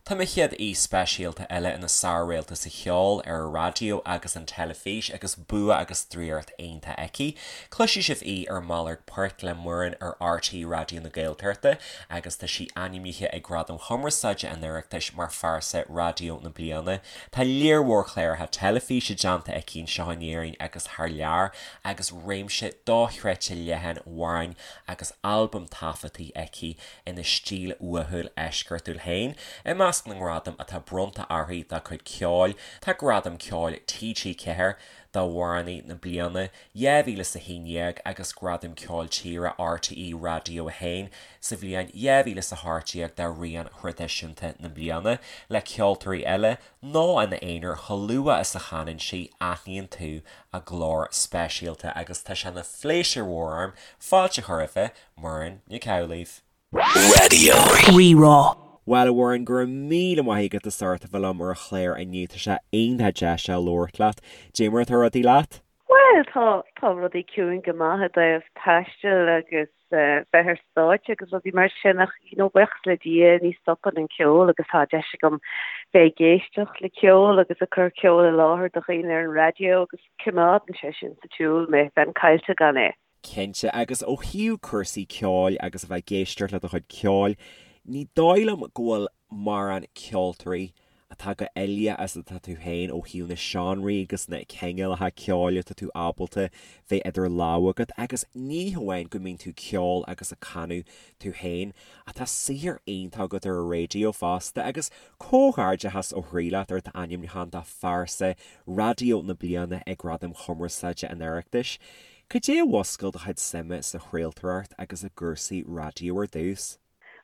Tá mo chéad aoi speisialta eile ina sár-réalta sa cheol, ar an raidió agus an teilifís agus bua agus draíocht iontach aici. Cloisfidh sibh í ar Malairt Poirt le Muireann ar RTÉ Raidió na Gaeltachta agus tá sí ainmnithe ag Gradaim Chumarsáide an Oireachtais mar Phearsa Raidió na Bliana. Tá léar mhór cláracha teilifíse déanta aici anseo in Éirinn agus thar lear agus réimse dochreidte leathan amhrán agus albam taifeadtaí aici ina stíl uathúil eisceachtúil féin. I measc na ngradam atá bronnta uirthi dá cuid ceoil, tá Gradam Ceoil TG4 d'Amhránaí na Bliana 2011 agus Gradam Ceoil Tíre RTÉ Radio 1 sa bhliain 2018 d'Amhránaí Traidisiúnta na Bliana, le ceoltóirí eile nó ina aonar chomh luath is a chanann sí, aithníonn tú a glór speisialta agus tá sé ina phléisiúr mhór orm fáilte a chur roimh Muireann Nic Amhlaoibh. Raidió Rí-Rá. Bhuel, a Mhuireann, go raibh míle maith agat as ucht a bheith liom ar an chlár inniu. Tá sé iontach deas a labhairt leat. Dé mar atá rudaí leat? Bhuel, tá, tá rudaí ciúin go maith i dtaobh taistil agus bheith ar stáitse agus rudaí mar sin ach, you know, buíochas le Dia ní stopann an ceol agus tá deis agam bheith ag éisteacht le ceol agus ag cur ceol i láthair do dhaoine ar an raidió agus coimeádann sé sin sa tsiúl mé, bheinn caillte gan é. Cinnte, agus ó thaobh cúrsaí ceoil agus a bheith ag éisteacht le do chuid ceoil, ní dóigh liom go bhfuil mórán ceoltóirí atá chomh uilíoch is atá tú féin ó thaobh na seánraí agus na cineálacha ceoil atá tú ábalta bheith idir lámha agat agus ní hamháin go mbíonn tú ceol agus ag canadh tú féin ach tá saothar iontach agat ar an raidió fosta agus comhghairdeachas ó chroí leat ar d'ainmniúchán do Phearsa Raidió na Bliana ag Gradaim Chumarsáide an Oireachtais. Cad é a mhúscail do chuid suime sa chraoltóireacht agus i gcúrsaí raidió ar dtús?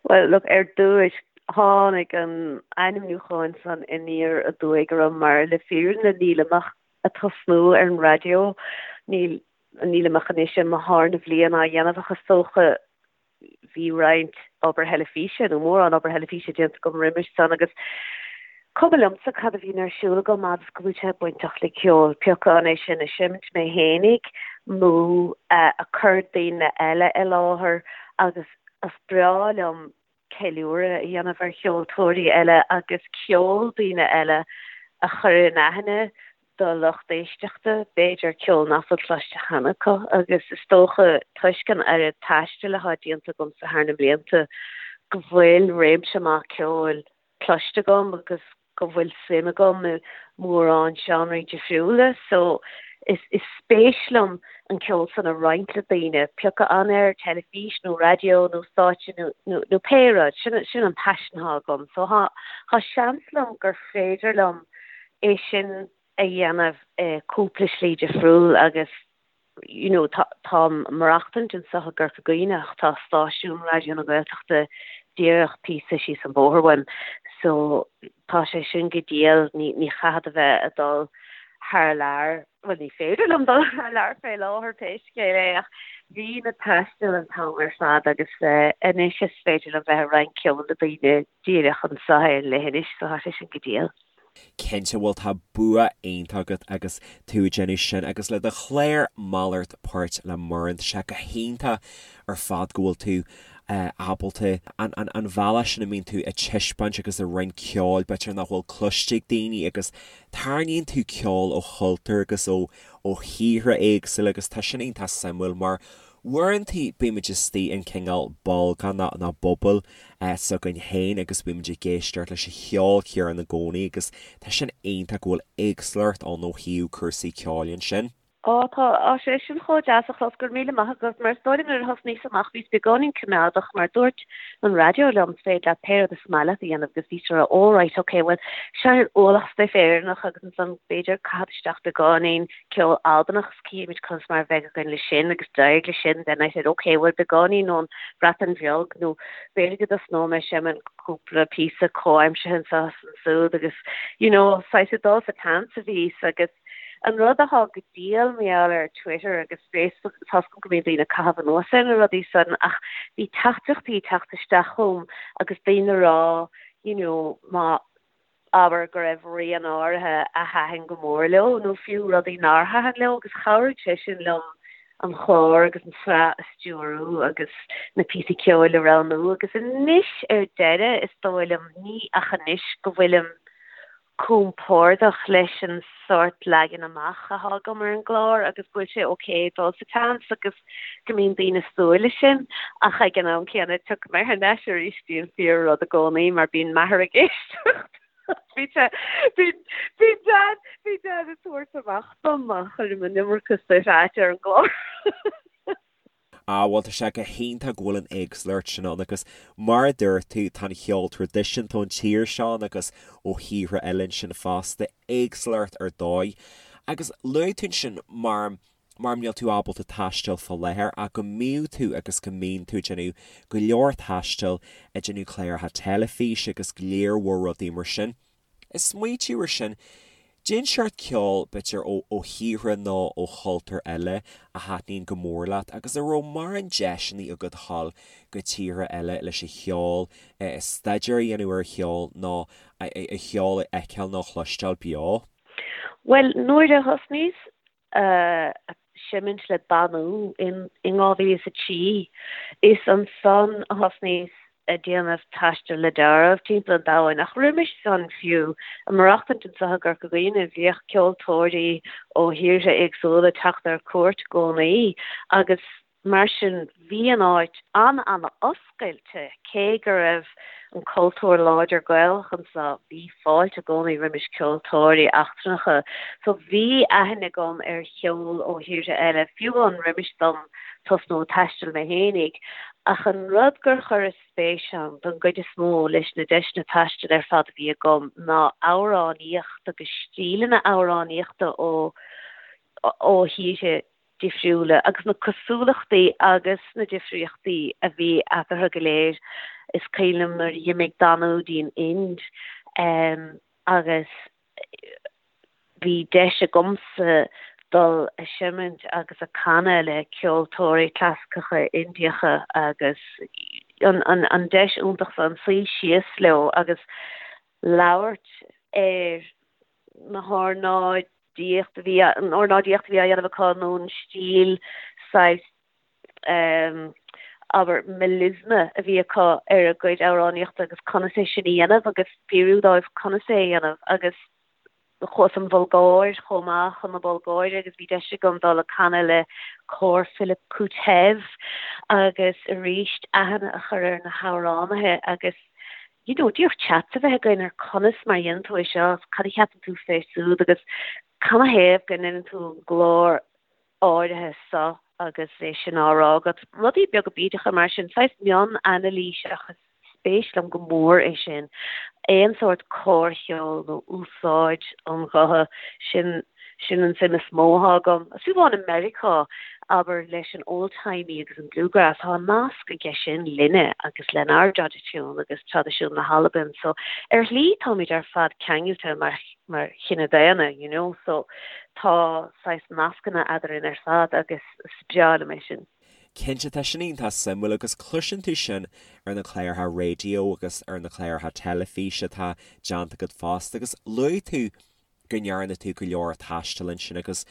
Bhuel, look, ar dtúis, tháinig an ainmniúchán san aniar aduaidh orm mar le fírinne nílim ach ag tosnú ar an raidió, níl, nílim ach anois i mo tharna bhliain á dhéanamh ach is dócha bhí roinnt obair theilifíse, nó mórán obair theilifíse déanta agam roimis san agus cuma liomsa cad a bhíonn ar siúl agam fhad is go bhfuil sé bainteach le ceol, pé acu an é sin ag seimint mé fhéinig nó ag cur daoine eile i láthair agus is breá liom ceiliúradh a dhéanamh ar cheoltóirí eile agus ceol daoine eile a chur in aithne do lucht éisteachta, b'fhéidir, ceol nach bhfuil cloiste cheana acu agus is dócha toisc an oiread taistil atá déanta agamsa thar na blianta go bhfuil réimse maith ceoil cloiste agam agus go bhfuil suim agam i mórán seánraí difriúla so is is spéis liom an ceol san a roinnt le daoine, pé acu an ar teilifís nó raidió nó stáitse nó nó nó pé rud, sin sin an paisean atá agam so thá thá seans liom gur féidir liom é sin a dhéanamh i cúpla slí difriúil agus you know tá táim ag maireachtaint anseo i gCorca Dhuibhne ach tá stáisiún Raidió na Gaeltachta díreach píosa síos an bóthar uaim so tá sé sin go diail ní ní chaithfead a bheith ag dul thar lear bhuel ní féidir liom dul thar lear fé láthair pé scéal é ach bhínn ag taisteal an t-am ar fad agus anois is féidir liom bheith ag roinnt ceoil le daoine díreach anseo ar an leithinis so tá sé sin go diail. Cinnte, bhuel tá bua iontach agat agus tú ag déanamh sin agus le do chlár Malairt Poirt le Muireann, tá sé go hiontach ar fad go bhfuil tú ábalta an an bhealach sin a mbíonn tú ag taispeáint agus ag roinnt ceoil b'fhéidir nach bhfuil cloiste ag daoine agus tarraingíonn tú ceol ó chultúir agus ó ó thíortha éagsúla agus tá sin iontach suimiúil mar Uaireanta bímid istigh in cineál bolgán nó bubble s'againn féin agus bímid ag éisteacht leis an cheol céanna i gcónaí agus tá sin iontach go bhfuil éagsúlacht ann ó thaobh cúrsaí ceoil ansin. Á tá, tá sé sin chomh deas a chlos, go raibh míle maith agat, mar is dóigh liom nuair a thosnaíos amach bhíos beagáinín coimeádach mar dúirt an raidió liom is féidir leat pé rud is maith leat a dhéanamh agus bhíos ag rá oh right ok bhuel seinn ualach stuif Éireannach agus ansan b'fhéidir caithfead isteach beagáinín ceol Albanach is cífimid conas mar a bheidh againn leis sin agus d'éirigh leis sin then I said ok bhuel beagáinín ón Bhreatain Bheag nó b'fhéidir go dtosnóidh mé ag seimint cúpla píosa comhaimseartha anseo is ansúd agus you know saghas ag dul sa tseans a bhíos agus an rud atá go diail mar gheall ar Twitter agus Facebook tá's agam go mbíonn daoine ag caitheamh anuas ar na rudaí san ach bhí teachtaireachtaí ag teacht isteach chugam agus daoine ag rá you know má abair go raibh rian áirithe a thaitin go mór leo nó fiú rudaí nár thaitin leo agus chabhraigh sé sin liom. an chlár agus an tsraith a stiúrú agus na píosaí ceoil a roghnú agus anois ar deireadh is dóigh liom, ní ach anois go bhfuilim compordach leis an sórt leagan amach atá agam ar an gclár agus go bhfuil sé ok dul sa tseans agus go mbíonn daoine ag súil leis sin ach ag an am céanna tiocfaidh mé thar n-ais arís dtí an fíor rud i gcónaí mar bíonn m'athair ag éisteacht. Bhí sé, bhí, bhí Dad, bhí Dad ag tabhairt amach dom má chuirim an iomarca stuif ait ar an gclár. Ah bhuel tá sé go hiontach go bhfuil an éagsúlacht sin ann agus mar a dúirt tú tá an cheol traidisiúnta ón tír seo ann agus ó thíortha eile ansin fosta, éagsúlacht ar dóigh. Agus luaigh tú ansin mar mar níl tú ábalta taisteal fá láthair ach go mbíodh tú agus go mbíonn tú ag déanamh go leor taistil, ag déanamh cláracha teilifíse agus go leor mhór rudaí mar sin. Ag smaoitiú ar sin, cén seort ceoil, b'fhéidir ó ó thíortha nó ó chultúir eile a thaitníonn go mór leat agus an raibh mórán deiseanna agat a dhul go tíortha eile leis an cheol, staidéar a dhéanamh ar an cheol nó an cheol a fheiceáil nó a chloisteáil beo? Bhuel, nuair a thosnaíos ag seimint le Danú in 2003. Is ansan a thosnaíos ag déanamh taistil le deáramh timpeall an domhain. Ach roimis san fiú, ag maireachtaint anso i gCorca Dhuibhne, bhíodh ceoltóirí ó thíortha éagsúla ag teacht ar cuairt i gcónaí agus Mar sin, bhí an áit an-an-oscailte, cé go raibh an cultúr láidir Gaelach anseo, bhí fáilte i gcónaí roimis ceoltóirí eachtrannacha. So bhí aithne agam ar cheol ó thíortha eile, fiú amháin roimis dom tosnú ag taisteal mé fhéinig. Ach an rud gur chuireas spéis ann, don gcuid is mó, leis na deiseanna taistil ar fad a bhí agam, ná amhránaíocht agus stíleanna amhránaíochta ó ó thíortha difriúla agus na cosúlachtaí agus na difríochtaí a bhí eatarthu go léir. Is cuimhin liom nuair a d'imigh Danú dtí'n Ind agus bhí deis agamsa dul a seimint agus a canadh le ceoltóirí clasaiceacha Indiacha agus an deis iontach san suí síos leo agus labhairt ar na hornáidíocht a bhí, an ornáidíocht a bhí á dhéanamh acu nó an stíl saghas ehm abair melisma a bhí acu ar a gcuid amhránaíochta agus conas é sin a dhéanamh agus fiafraí dóibh conas é a dhéanamh agus chuas an Bhulgáir chomh maith chun na Bulgáire agus bhí deis agam dul ag canadh le cór Philip Koutev agus arís aithne a chur ar na hamhránaithe agus you know, díreach chat a bheith againn ar conas mar a dhéanann tú é seo, cad a cheapann tú fé súd agus canathaobh go ndeineann tú an glór áirithe so agus é sin á rá agat. Rudaí beaga bídeacha mar sin, saghas mion-anailís ach is spéis liom go mór é sin. Aon sórt córcheol nó úsáid an ghutha, sin Sin an suim is mó atá agam. Fiú amháin i Meiriceá, abair, leis an old-timey agus an bluegrass, tá nasc aige sin linne agus lenár dtraidisiún agus traidisiún na hAlban. So, ar shlí táimid ar fad ceangailte mar, mar chine daonna, you know, so tá saghas nascanna eadrainn ar fad agus is breá liom é sin. Cinnte, tá sin iontach suimiúil agus cloiseann tú sin ar na cláracha raidió agus ar na cláracha teilifíse atá déanta agat fosta agus luaigh tú go ndearna tú go leor taistil ansin agus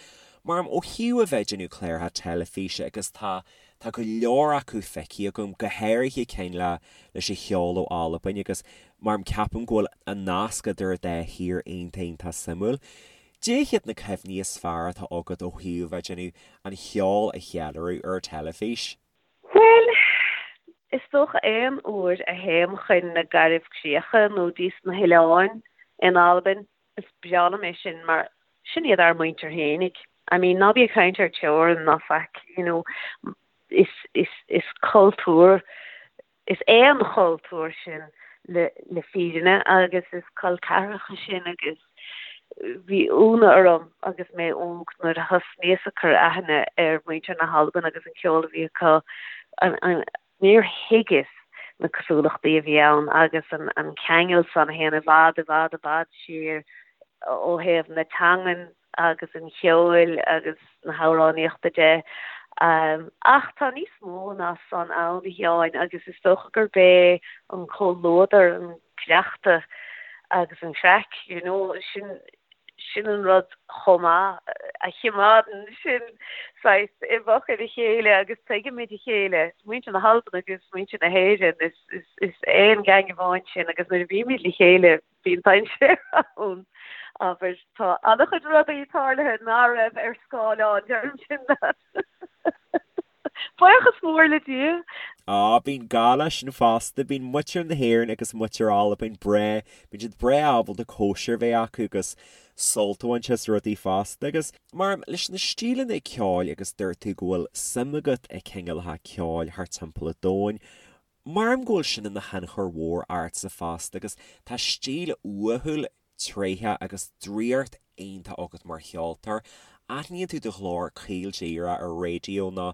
mar ó thaobh a bheith ag déanamh cláracha teilifíse agus tá tá go leor acu feicthe agam, go háirithe cinn le leis an cheol ó Albain agus mar ceapaim go bhfuil an nasc idir an dá thír iontach iontach suimiúil. Cad iad na cuimhní is fearr atá agat ó thaobh a bheith ag déanamh an cheol a cheiliúradh ar an teilifís? Bhuel, is dócha aon uair a théim chun na Garbhchríocha nó dtís na hoileáin in Albain, is breá liom é sin mar sin iad ár muintir fhéinig. I mean, ná bí ag caint ar teorainn ná faic, you know, is, is, is cultúr, is aon chultúr sinn le, le fírinne agus is col ceathracha sinn agus bhí ionadh orm agus mé óg nuair a thosnaíos ag cur aithne ar mhuintir na hAlban agus an ceol a bhí acu, an, an, Níor thuigeas na cosúlachtaí a bhí ann agus an ceangal san a théann i bhfad, i bhfad, i bhfad siar ó thaobh na teangan agus an cheoil agus na hamhránaíochta de. Ach tá níos mó ná san ann, a Sheáin, agus is dócha gurb é an comhluadar, an cleachtadh agus an chraic, you know, sin. Sin an rud chomh maith a chimeádann sinn saghas i bhfochair a chéile agus tuigimid a chéile. Muintir na hAlban agus muintir na hÉireann, is, is aon gang amháin sinn agus nuair a bhímid le chéile bíonn dainséar ann. Abair, tá an-chuid rudaí tarlaithe ná raibh ar scáileán, deirim sin leat. Buíochas mór le Dia. Á, bíonn gá leis sin fosta. Bíonn muintir na hÉireann agus muintir Albain breá, bíonn siad breá ábalta cóisir a bheith acu agus sult a bhaint as rudaí fosta. Agus mar leis na stíleanna ceoil agus dúirt tú go bhfuil suim agat i cineálacha ceoil thart timpeall an domhain, Maram go bhfuil sin ina thionchar mhór ortsa fosta agus tá stíl uathúil, tréitheach agus draíocht iontach agat mar cheoltóir. Aithníonn tú do ghlór caol díreach ar raidió nó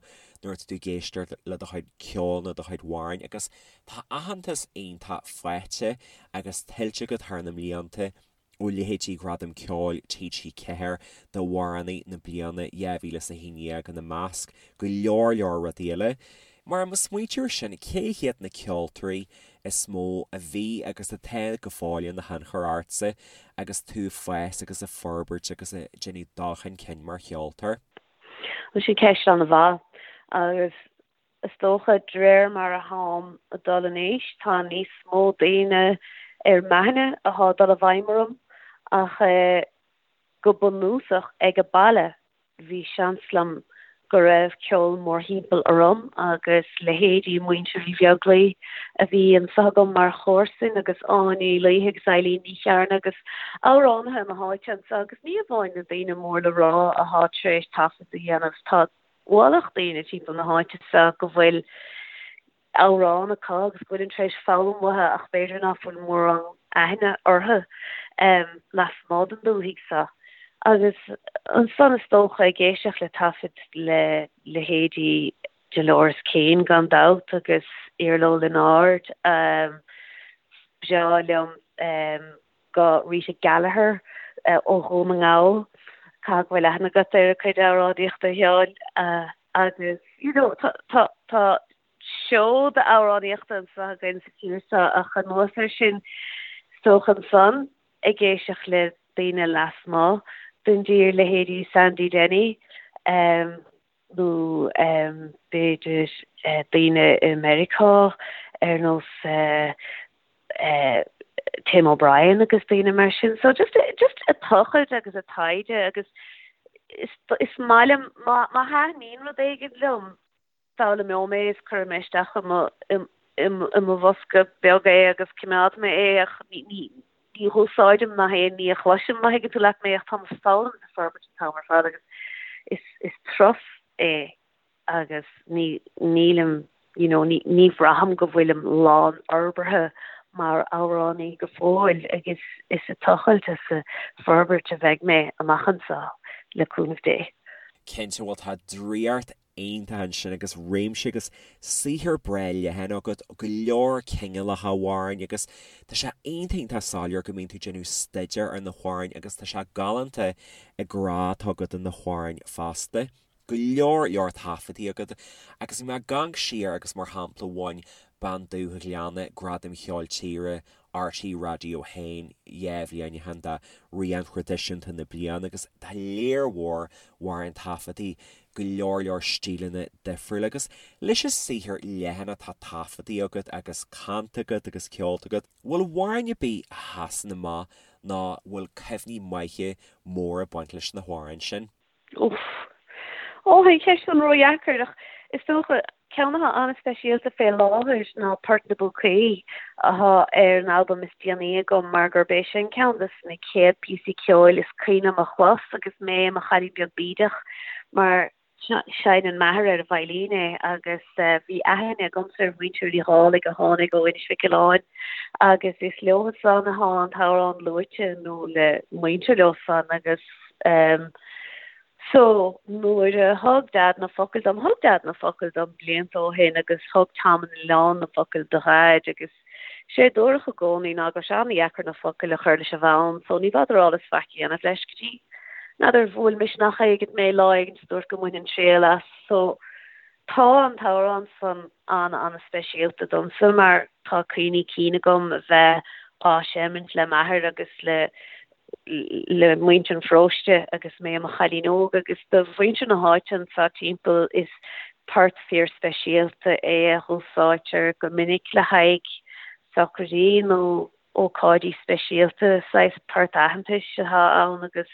nuair atá tú ag éisteacht le do chuid ceoil nó do chuid amhráin agus tá aitheantas iontach faighte agus tuillte agat thar na mblianta. ó leithéidí Ghradam Ceoil TG4 d'Amhránaí na Bliana 2011 ina measc, go leor leor rudaí eile. Mar má smaointíonn tú air sin, cé hiad na ceoltóirí is mó a bhí agus atá go fóill ina thionchar ortsa agus tú ag fás agus ag forbairt agus ag déanamh dul chun cinn mar cheoltóir? Bhuel, sin ceist an-mhaith agus Is dócha, de réir mar a tháim ag dul in aois, tá níos mó daoine ar m'aithne athá ag dul i bhfeidhm orm, ach go bunúsach ag an baile bhí seans liom go raibh ceol mórthimpeall orm agus leithéidí Muintir Uí Bheaglaoi a bhí anso agam mar chomharsain agus Áine Uí Laoithe agus Eileen Ní Chearna agus amhránaithe na háite anso agus ní amháin na daoine mór le rá athá tar éis taifead a dhéanamh, tá ualach daoine timpeall na háite seo go bhfuil amhrán acu agus go bhfuilim tar éis foghlaim uathu ach b'fhéidir ná fuil mórán aithne orthu lasmuigh den dúthaigh seo. Agus ansan is dócha ag éisteacht le taifid le leithéidí Dolores Keane gan dabht agus Iarla Ó Lionáird, breá liom go Rita Gallagher ó Dhún na nGall, caithfidh go bhfuil aithne agat ar a cuid amhránaíochta a Sheáin, agus you know tá tá tá seoda amhránaíochta anseo againn sa tír seo ach anuas air sin is dócha ansan ag éisteacht le daoine lasmuigh den dtír, leithéidí Sandy Denny nó b'fhéidir daoine i Meiriceá ar nós Tim O'Brien agus daoine mar sin. So just just ag tochailt agus ag taighde agus is is maith liom má má thaitníonn rud éigin liom foghlaimeoidh mé is cuirfidh mé isteach i mo i i i mo bhosca beag é agus coimeádfaidh mé é ach ní ní ní dh'úsáidim nach aon ní a chloisim má thuigeann tú leat mé ach táim ag foghlaim is ag forbairt an t-am ar fad agus is is turas é agus ní, nílim, you know, ní, ní bhraithim go bhfuilim lánfhorbartha mar amhránaí go fóill agus is ag tochailt is ag forbairt a bheidh mé amach anseo, le cúnamh Dé. Cinnte, bhuel tá draíocht iontach ansin agus réimse agus saothar breá leathan agat, go leor cineálacha amhráin agus tá sé iontach iontach soiléir go mbíonn tú ag déanamh staidéar ar na hamhráin agus tá sé galánta an grá atá agat do na hamhráin fosta. go leor leor taifeadtaí agat agus bhí mé ag amharc siar agus mar shampla bhain Bean Dubh an Ghleanna Gradam Cheoil Tíre RTÉ Raidió 1 2 bhliain ó shin d'Amhrán Traidisiúnta na Bliana agus tá léar mhór amhrán taifeadtaí go leor leor stíleanna difriúla agus leis an saothar leathan atá taifeadtaí agat agus canta agat agus ceolta agat, bhfuil amhrán ar bith a sheasann amach nó bhfuil cuimhní maithe móra ag baint leis na hamhráin sin? Uff. Ó, tá an cheist san ródheacair, ach is dócha, ceann atá an-speisialta fé láthair ná Port na bPúcaí, athá ar an albam is déanaí agam, mar gurb é sin ceann de na chéad píosaí ceoil is cuimhin liom a chlos agus mé i mo chailín beag bídeach, mar seinneann m'athair ar an veidhlín é agus bhí aithne agamsa ar mhuintir Uí Dhálaigh a tháinig ó Inis Mhic Aoláin agus is leo san athá an t-amhrán luaite nó le muintir leo san agus Em so nuair a thug Dad na focail dom, thug Dad na focail dom blianta ó shin agus thug Tom an Oileáin na focail do Dhaid agus sé a dúradh i gcónaí ná go raibh sé an-dheacair na focail a chur leis an bhfonn so ní bhfeadar eolas faic a dhéanamh leis go dtí n'fheadar bhuail misneach éigint mé lá éigint is dúirt go mbainfinn triail as so tá an t-amhrán san an-an-speisialta domsa mar tá cuimhní cinn agam a bheith á seimint le m'athair agus le. Le muintir an pharóiste agus mé i mo chailín óg agus do mhuintir na háite anseo timpeall is port fíorspeisialta é a dh'úsáidtear go minic le haghaidh socraidí nó ócáidí speisialta. Saghas port aitheantais atá ann agus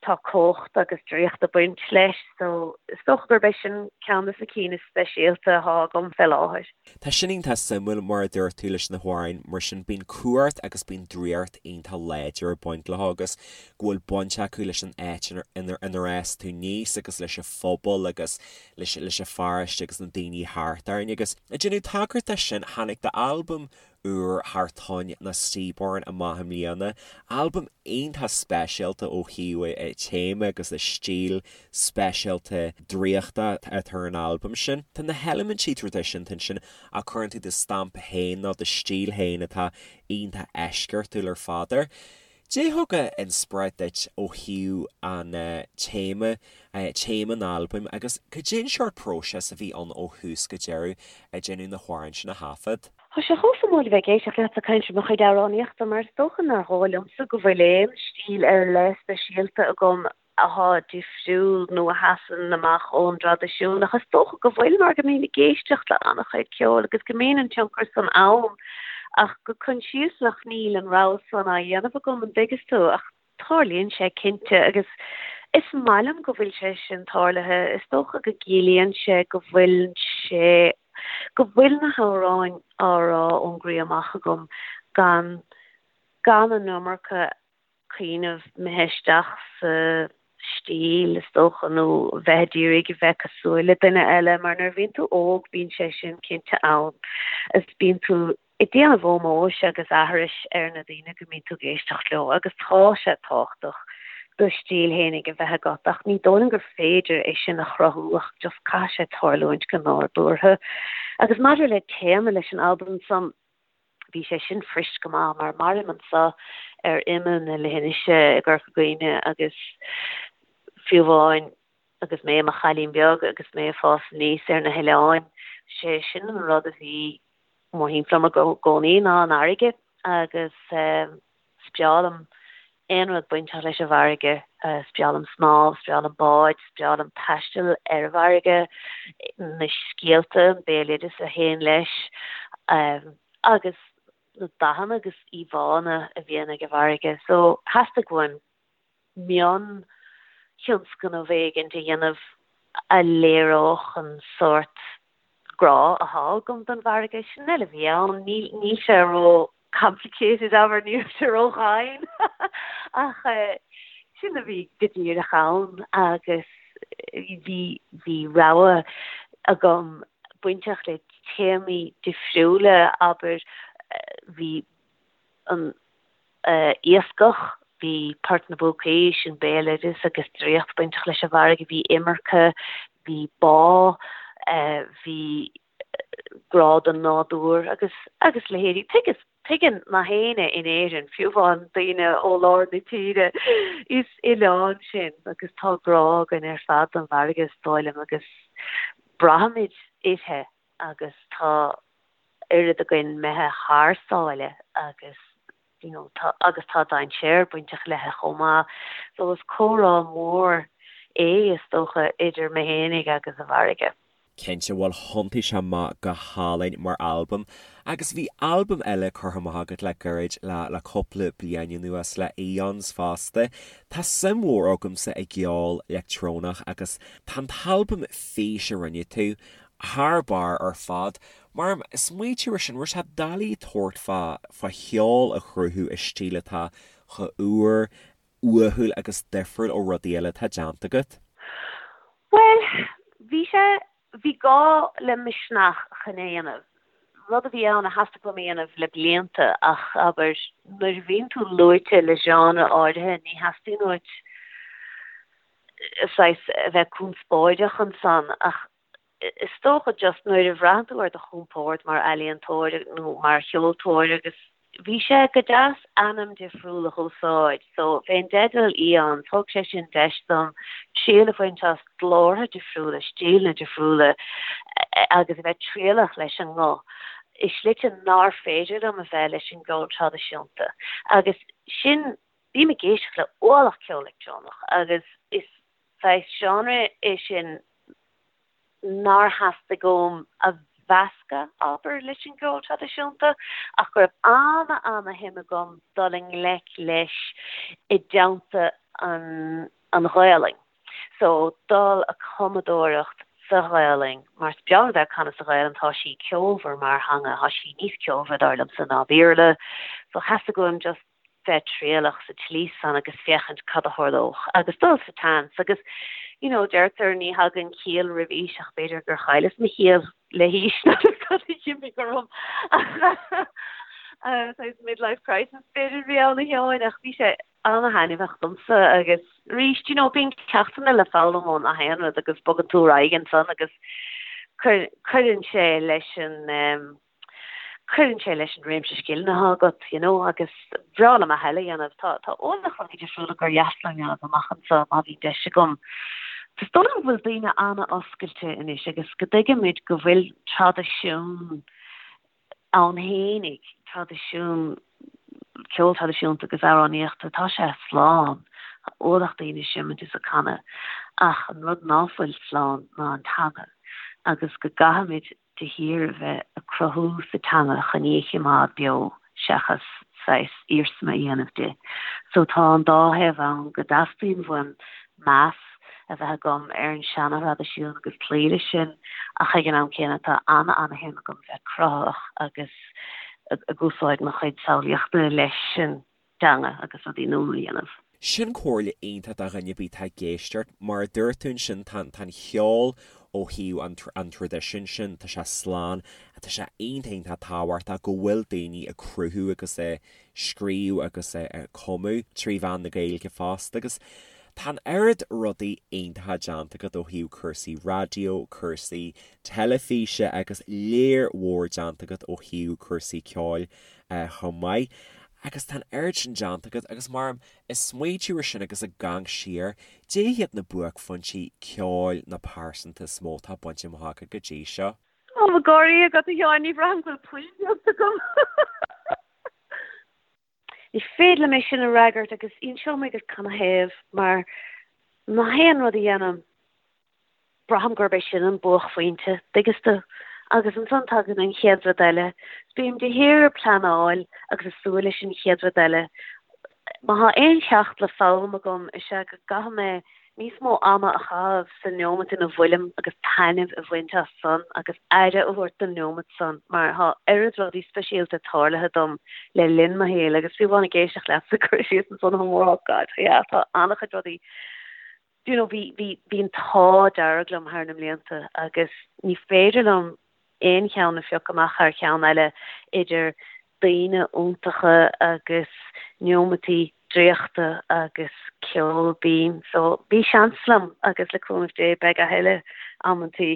tá cumhacht agus draíocht ag baint leis so is dócha gurb é sin ceann de na cinn is speisialta atá agam fé láthair. Tá sin iontach suimiúil mar a dúirt tú leis na hamhráin mar sin bíonn cumhacht agus bíonn draíocht iontach láidir ag baint leo agus go bhfuil baint acu leis an áit inar fhás tú aníos agus leis an phobal agus leis leis an pharóiste agus na daoine thart orainn agus ag déanamh tagairt de sin tháinig d'albam úr Thar Toinn nó Seaborn amach i mbliana, albam iontach speisialta ó thaobh a téama agus a stíl speisialta draíochta atá ar an albam sin. Tá na heilimintí traidisiúnta ansin ach cuireann tú do stampa féin nó do stíl féin atá iontach eisceachtúil ar fad air. Cad é thug inspioráid duit ó thaobh an téama, téama an albaim agus cad é an seort próiseas a bhí ann ó thús go deireadh ag déanamh na hamhráin sin a thaifead? Tá sé chomh suimiúil a bheith ag éisteacht leat ag caint ar mo chuid amhránaíochta mar is dócha nár dhóigh liomsa go bhfuil aon stíl ar leith speisialta agam athá difriúil nó a sheasann amach ón dtraidisiún ach is dócha go bhfuil mar go mbím ag éisteacht le an-chuid ceoil agus go mbíonn an tionchar san ann ach go coinsiasach níl an rogha san á dhéanamh agam an dtuigeas tú ach Tarlaíonn sé cinnte agus is maith liom go bhfuil sé sin tarlaithe. Is dócha go gciallaíonn sé go bhfuil sé, go bhfuil na hamhráin á rá ón gcroí amach agam gan, gan an iomarca cuimhneamh imithe isteach sa stíl is dócha nó bheith ag iarraidh a bheith cosúil le duine eile mar nuair a bhíonn tú óg bíonn sé sin cinnte ann is bíonn tú ag déanamh ómóis agus aithris ar na daoine go mbíonn tú ag éisteacht leo agus tá sé tábhachtach do stíl fhéinig a bheith agat ach ní dóigh liom gur féidir é sin a chruthú ach just caithfidh sé tarlúint go nádúrtha. Agus maidir le téama leis an albam san, bhí sé sin fuirist go maith mar mairim anso ar imeall na leithinise i gCorca Dhuibhne agus fiú amháin agus mé i mo chailín beag agus mé ag fás aníos ar na hoileáin, sé sin an rud a bhí mórthimpeall orm i gcónaí ná an fharraige agus is breá liom aon rud bainteach leis an bhfarraige. Is breá liom snámh, is breá liom báid, is breá liom taisteal ar an bhfarraige, na scéalta, an béaloideas a théann leis agus na dathanna agus íomhánna a bhíonn ag an bhfarraige. So theastaigh uaim mion-thionscnamh éigint a dhéanamh a léireodh an sórt grá athá agam don bhfarraige. Sin uile a bhí ann. Níl sé ró complicated, abair, níl sé ró dhomhain ach sin a bhí go díreach ann agus bhí bhí rogha agam bainteach le téamaí difriúla, abair, bhí an iascach, bhí Port na bPúcaí, sin béaloideas agus draíocht bainteach leis an bhfarraige, bhí imirce, bhí bá, bhí grá don nádúr agus agus leithéidí. Tuigeas, tuigeann nach éinne in Éirinn, fiú amháin daoine ó lár na tíre, is oileán sinn agus tá grá againn ar fad don bhfarraige is dóigh liom agus braithimid uirthi agus tá oiread againn imithe thar sáile agus you know tá agus tá dainséar bainteach léithi chomh maith. So is comhrá mór é is dócha idir mé fhéinig agus an bhfarraige. Cinnte, bhuel thiontaigh sé amach go hálainn mar albam agus bhí albam eile curtha amach agat le gairid le le cúpla bliain anuas le Aeons fosta. Tá suim mhór agamsa i gceol leictreonach agus tá an t-albam Fís a rinne tú thar barr ar fad. Mar smaoitiú ar sin, raibh sé doiligh tabhairt fá fá cheol a chruthú i stíl atá chomh úr, uathúil agus difriúil ó rudaí eile atá déanta agat? Bhuel, bhí sé, bhí gá le misneach chun é a dhéanamh. Rud a bhí ann a theastaigh uaim a dhéanamh le blianta ach, abair, nuair a bhíonn tú luaite le genre áirithe ní theastaíonn uait saghas a bheith conspóideach ansan ach is dócha just nuair a bhraitheann tú ar do chompord mar ealaíontóir nó mar cheoltóir agus bhí sé go deas ainm difriúil a dh'úsáid so fén dteideal Aeons thug sé sin deis dom triail a bhaint as glórtha difriúla, stíleanna difriúla agus a bheith trialach leis an nguth i slite nár féidir liom a bheith leis an gceol traidisiúnta agus sin. Bím ag éisteacht le ualach ceol leictreonach agus is saghas genre é sin nár theastaigh uaim a mheascadh, abair, leis an gceol traidisiúnta, ach go raibh ana-ana-shuim agam dul i ngleic leis i dteannta an an Ghaelainn. So, dul a cumadóireacht sa Ghaelainn, mar is breá liom a bheith ag canadh sa Ghaelainn, tá sí ceolmhar mar theanga, tá sí níos ceolmhaire dar liomsa ná Béarla, so theastaigh uaim just bheith trialach sa tslí san agus féachaint cad a tharlódh agus dul sa tseans agus you know deirtear ní thagann ciall roimh aois ach b'fhéidir gur chailleas mo chiall le haois nó cad a d'imigh orm saghas midlife crisis b'fhéidir a bhí ann a Sheáin ach bhí sé ana-thaitneamhach domsa agus arís you know bíonn ceachtanna le foghlaim ó nach aon rud agus bogann tú ar aghaidh ansan agus cuireann sé leis an cuireann sé leis an réimse scileanna atá agat, you know, agus bhreá liom a thuilleadh a dhéanamh. Tá, tá ualach rudaí difriúla gur dheas liom a dhéanamh amach anseo má bhíonn deis agam. Is dóigh liom go bhfuil daoine an-oscailte anois agus go dtuigimid go bhfuil traidisiún ann fhéinig, traidisiún ceol traidisiúnta agus amhránaíochta, tá sé slán. Tá ualach daoine ag seimint is ag canadh ach an rud ná fuil slán ná an teanga agus go gcaithfimid de shíor a bheith ag cruthú sa teanga chun í a chimeád beo seachas saghas iarsma a dhéanamh di. So tá an dá thaobh ann, go dteastaíonn uaim meas a bheith agam ar an seana-thraidisiún agus cloí leis sin ach ag an am céanna tá ana-ana-shuim agam bheith cruthaitheach agus ag úsáid mo chuid samhlaíochta leis an teanga agus rudaí nua a dhéanamh. Sin comhairle iontach do dhuine ar bith atá ag éisteacht. Mar a dúirt tú ansin, tá an cheol ó thaobh an an traidisiúin sin, tá sé slán. Tá sé iontach iontach tábhachtach go bhfuil daoine ag cruthú agus ag scríobh agus ag cumadh trí mheán na Gaeilge fosta agus tá an oiread rudaí iontacha déanta agat ó thaobh cúrsaí raidió, cúrsaí teilifíse agus léar mhór déanta agat ó thaobh cúrsaí ceoil chomh maith. Agus tá an oiread sin déanta agat agus mar ag smaoitiú ar sin agus ag amharc siar, cad iad na buaicphointí ceoil nó pearsanta is mó atá bainte amach agat go dtí seo? Tá mo gáirí agat a Sheáin, ní bhraithim go bhfuil puinn déanta agam. Ní féidir liom é sin a fhreagairt agus inseoidh mé duit canathaobh mar nach aon rud a dhéanaim braithim gurb é sin an buaicphointe, dtuigeann tú? Agus ansan tagann an chéad rud eile. Bím de shíor ag pleanáil agus ag súil leis an chéad rud eile. Má thá aon cheacht le foghlaim agam is ea go gcaithfidh mé níos mó ama a chaitheamh sa neomat ina bhfuilim agus taitneamh a bhaint as san agus aire a thabhairt don neomat san mar thá oiread rudaí speisialta tarlaithe dom le linn mo shaoil agus fiú amháin ag éisteacht leatsa ag cur síos ansan chomh mór oh God yeah tá an-chuid rudaí you know, bhí, bhí, bhí an t-ádh dearg liom thar na mblianta agus ní féidir liom aon cheann a phiocadh amach thar cheann eile idir daoine iontacha agus neomataí draíochta agus ceol binn. So bhí seans liom agus le cúnamh Dé beidh a thuilleadh amantaí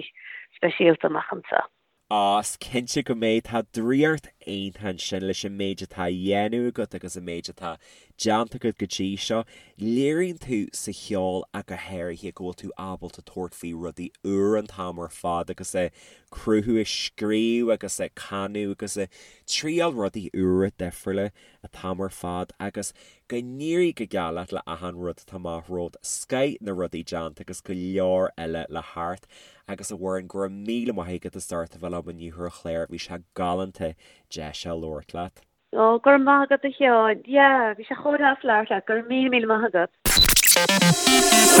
speisialta amach anseo. Á, is cinnte go mbeidh. Tá draíocht iontach ansin leis an méid atá á dhéanamh agat agus an méid atá déanta agat go dtí seo. Léiríonn tú sa cheol ach go háirithe go bhfuil tú ábalta tabhairt faoi rudaí úra an t-am ar fad agus ag cruthú, ag scríobh agus ag canadh agus ag triail rudaí úra difriúla an t-am ar fad agus go n-éirí go geal leat le achan rud atá amach romhat, scoith na rudaí déanta agus go leor eile le theacht. Agus a Mhuireann, go raibh míle maith agat as ucht a bheith liom inniu ar an chlár, bhí sé galánta deis a labhairt leat. Ó, go raibh maith agat a Sheáin. Yeah, bhí sé chomh deas labhairt leat. Go raibh míle míle maith agat.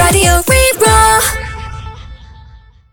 Raidió Rí-Rá.